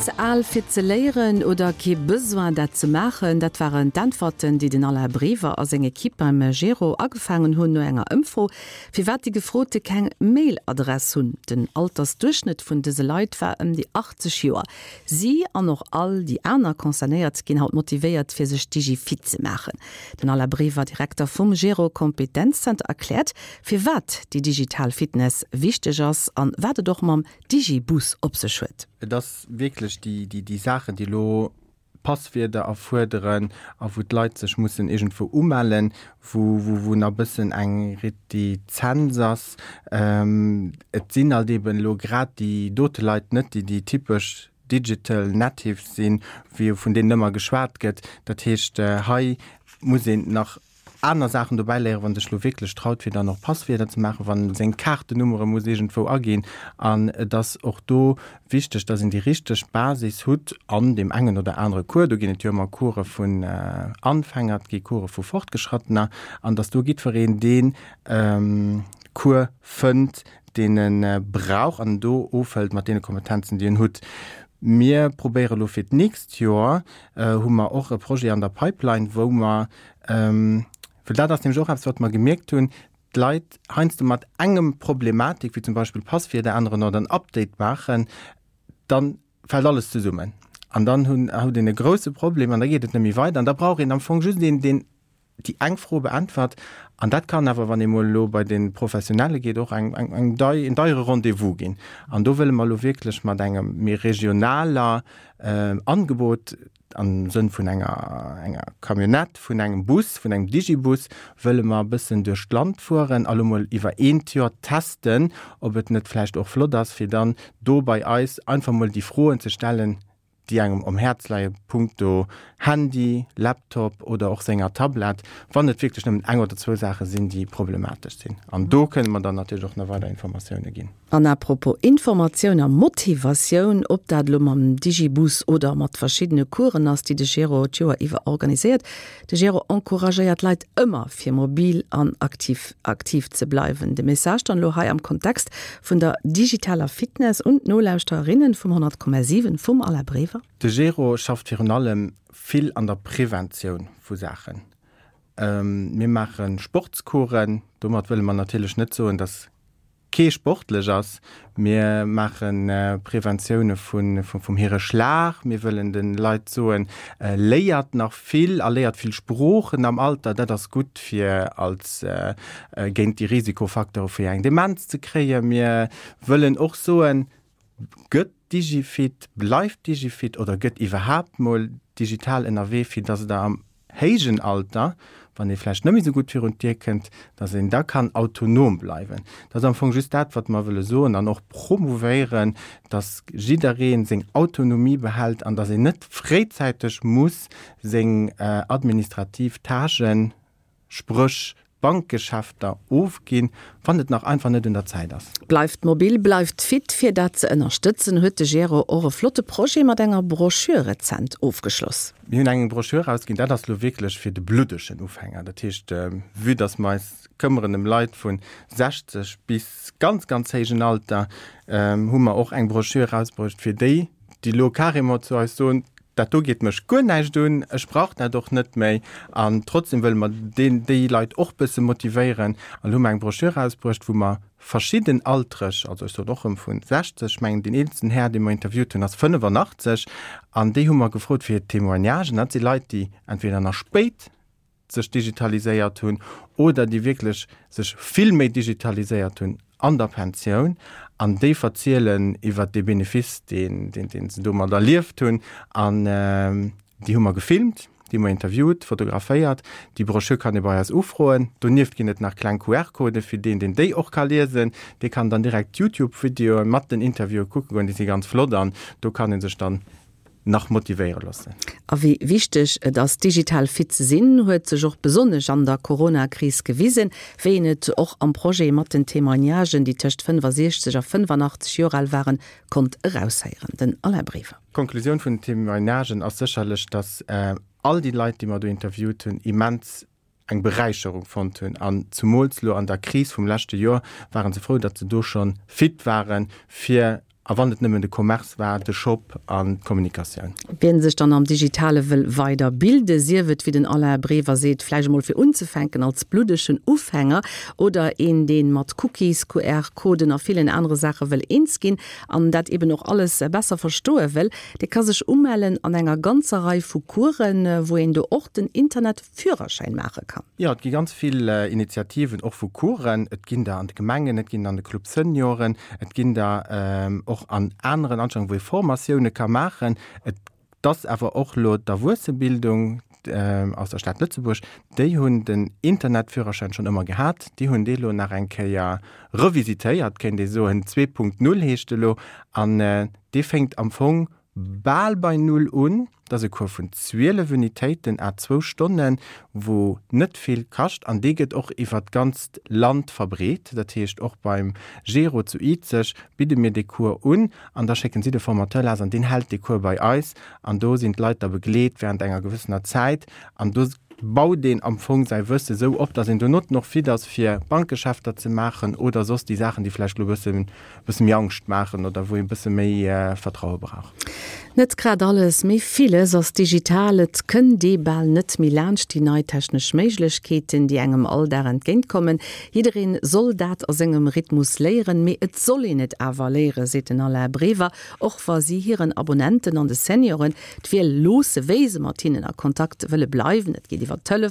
Ze al fir ze léieren oder kee Besoin dat ze maachen, dat waren d'Äntwerten, déi den Alain Brever a seng Equipe beim Gero agefaangen hunn no enger Ëmfro, firwat déi Gefrote keng Mail-Adress hunn. Den Altersduerchschnëtt vun dëse Leit war ëm déi 80 Joer. Si an och all déi aner Concernéiert ginn haut motivéiert, fir sech digifit ze maachen. Den Alain Brever, Direkter vum Gero Kompetenzzenter, erkläert, firwat déi digital Fitness wichteg ass an wat et och mam Digibus op sech huet. Et ass wierklech déi Saachen, déi elo Passwierder erfuerderen a wou d'Leit sech mussen iergendwou umellen, wou nach e bëssen eng Retizenz ass. Et sinn halt eeben elo grad déi dote Leit net, déi déi typesch Digital Natives sinn, wéi vun deenen ëmmer geschwat gëtt. Dat heescht, hei muss een nach aner Saachen dobäi léieren, wann sech lo wierklech traut fir dann och Passwierder ze maachen, wann seng Kaartennummere muss iergendwou aginn. An et ass och do wichteg, dass een déi richteg Basis hutt an deem engen oder anere Cours. Do ginn et jo ëmmer Course vun Anfänger, et gi Course vu Fortgeschrattener, an dass do jiddwereen dee Cours fënnt, deen e brauch an en do ofhëlt mat deene Kompetenzen, déi en hutt. Mir probéiere lo fir d'nächst Joer, hu mer och e Projet an der Pipeline, wou mer Well dat ass nämlech och eppes, wat mer gemierkt hunn, d'Leit heiansdo mat engem Problematik, wéi zum Beispill Passwierder änneren oder en Update maachen, da fält alles zesummen. An dann hunn, huet een e grouse Problem an da geet et net méi weider. An da brauch een am Fong just een, deen déi eng Fro beäntwert. An dat kann awer, wann ee mol elo bei de Professionelle geet, och eng, eng, eng dei, en deiere Rendez-vous ginn. An do wëlle mer elo wierklech mat engem méi regionaler Angebot, Am Sënn vun enger, enger Camionnette, vun engem Bus, vun engem Digibus, wëlle mer e bëssen duerch d'Land fueren a lo mol iwwer eent Joer testen, ob et net vläicht och flott ass, fir dann do bei eis einfach mol déi Froen ze stellen, déi engem um Häerz leie punkto Handy, Laptop oder och senger Tablett, wann et wierklech nëmmen eng oder zwou Saache sinn, déi problematesch sinn. An do kënne mer dann natierlech och nach weider Informatioune ginn. An à propos Informatioun a Motivatioun, ob dat elo mam Digibus oder mat verschiddene Coursen ass, déi de Gero d'Joer iwwer organiséiert, de Gero encouragéiert d'Leit ëmmer fir mobil an aktiv aktiv ze bleiwen. De Message dann elo hei am Kontext vun der digitaler Fitness un d'Nolauschtererinnen vum 100,7 vum Alain Brever. De Gero schafft virun allem vill an der Preventioun vu Saachen. Mir maache Sportscoursen, domat wëlle mer natierlech net soen, dass kee sportlech ass. Mir maache Preventioune vum hire Schlag. Mir wëllen de Leit soen, léiert nach vill a léiert vill Sproochen am Alter. Dat ass gutt fir als géint déi Risikofacteure fir eng Demenz ze kréien. Mir wëllen och soen, Gëtt Digifit, bleift Digifit oder gëtt iwwerhaapt mol digital ënnerwee, fir dass et am héijen Alter, wann ee vläicht net méi esou gutt virun d'Dier kënnt, dass een da kann autonom bleiwen. Dat ass am Fong just dat, wat mer wëlle soen an och promouvéieren, dass jidderee seng Autonomie behält an dass een net fréizäiteg muss seng administrativ Tâchen, spréch d'Bankgeschäfter, ofginn, wann et nach einfach net un der Zäit ass. Bleift mobil, bleift fit! Fir dat ze ënnerstëtzen, huet de Gero och e flotte Projet mat enger Broschür rezent ofgeschloss. Mir hunn eng Broschür erausginn, dat ass elo wierklech fir de bluddegen Ufänger. Dat heescht, vue dass mer eis këmmeren ëm Leit vu 60 bis ganz, ganz héijen Alter, hu mer och eng Broschür erausbruecht fir déi, déi elo carrément zu eis soen, dat do geet mech guer näischt un, ech brauch dat och net méi. An trotzdem wëlle mer deen, déi Leit och bësse motivéieren. An elo hu mer eng Broschür erausbruecht, wou mer verschidden Altereg, also ech soen och erëm vu 60, ech mengen deen eelsten Här, dee mer interviewt hunn, ass 85, an déi hu mer gefrot fir hir Témoignagen. Dat si Leit, déi entweder nach spéit sech digitaliséiert hunn oder déi wierklech sech vill méi digitaliséiert hunn an der Pensioun an déi verzielen iwwert dee Benefice, deen, deen, deen se domat erlieft hunn. An déi hu mer gefilmt, déi hu mer interviewt, fotograféiert. Déi Broschür kann ee bei eis ufroen. Donieft ginn et nach kleng QR-Codë fir deen, deen déi och ka liesen. Dee kann dann direkt d'Youtube-Videoe mat den Interviewe kucke goen. Déi si ganz flott an do kann ee sech dann nach motivéiere loossen. A wéi wichteg et ass, digital fit ze sinn, huet sech och besonnesch an der Corona-Kris gewisen, wéi een et och am Projet mat den Témoignagen, déi tëscht 65 a 85 Joer al waren, konnt eraushéieren. Den Alain Brever. D'Konklusioun vun den Témoignagen ass sécherlech, dass all déi Leit, déi mer do interviewt hunn, immens eng Beräicherung fonnt hunn an zumools lo an der Kris vum leschte Joer waren se frou, datt se do schonn fit waren, fir. A wann et nëmmen de Commerce war, de Shop an d'Kommunikatioun. Wien sech dann am Digitale wëll weider bilde, sief et, wéi den Alain Brever seet, vläicht emol fir unzefänken als bluddegen Ufänger oder een, dee mat Cookies, QR-Coden a villen anere Saache wëll eens ginn an dat eben och alles besser verstoe wëll, dee ka sech umellen an enger ganzer Rei vu Coursen, wou een do och den Internet Führerschäin maache kann. Jo, et gi ganz vill Initiativen, och vu Coursen. Et ginn der an de Gemengen, et ginn der an de Club Senioren, et ginn der och an aneren Anstellungen, wou ee Formatioune ka maachen. Et ass awer och elo d'Erwuessebildung aus der Stad Lëtzebuerg, déi hunn den Internetführerschäin schonn ëmmer gehat. Déi hunn dee lo nach eng Kéier revisitéiert, kéint ee soen. 2.0 heescht e lo an dee fénkt am Fong bal bei Null un. Dat ass e Cours vun 12 Unitéiten à zwou Stonnen, wou net vill kascht an dee gëtt och iwwer d'ganzt Land verbreet. Dat heescht, och beim Gero zu Izeg bidde mir dee Cours un an da schécken si de Formateur lass an deen hält dee Cours bei eis an do sinn d'Leit da begleet während enger gewëssener Zäit an do baut een am Fong säi Wësse sou op, datt een donotten och fit ass fir Bankgeschäfter ze maachen oder soss déi Saachen, déi vläicht elo e bësse bësse méi Angscht maachen oder wou ee bësse méi Vertraue brauch. Net grad alles, mee villes ass digital. Et kënnt ee bal net méi laanscht déi nei technesch Méiglechkeeten, déi engem all Dag entgéintkommen. Jiddereen soll dat a sengem Rhythmus léieren, mee et soll een et awer léieren, seet den Alain Brever, och wa si hiren Abonnenten an de Senioren d'Wiel loosse, wéi se mat hinnen a Kontakt wëlle bleiwen. Et geet iwwer Telefon.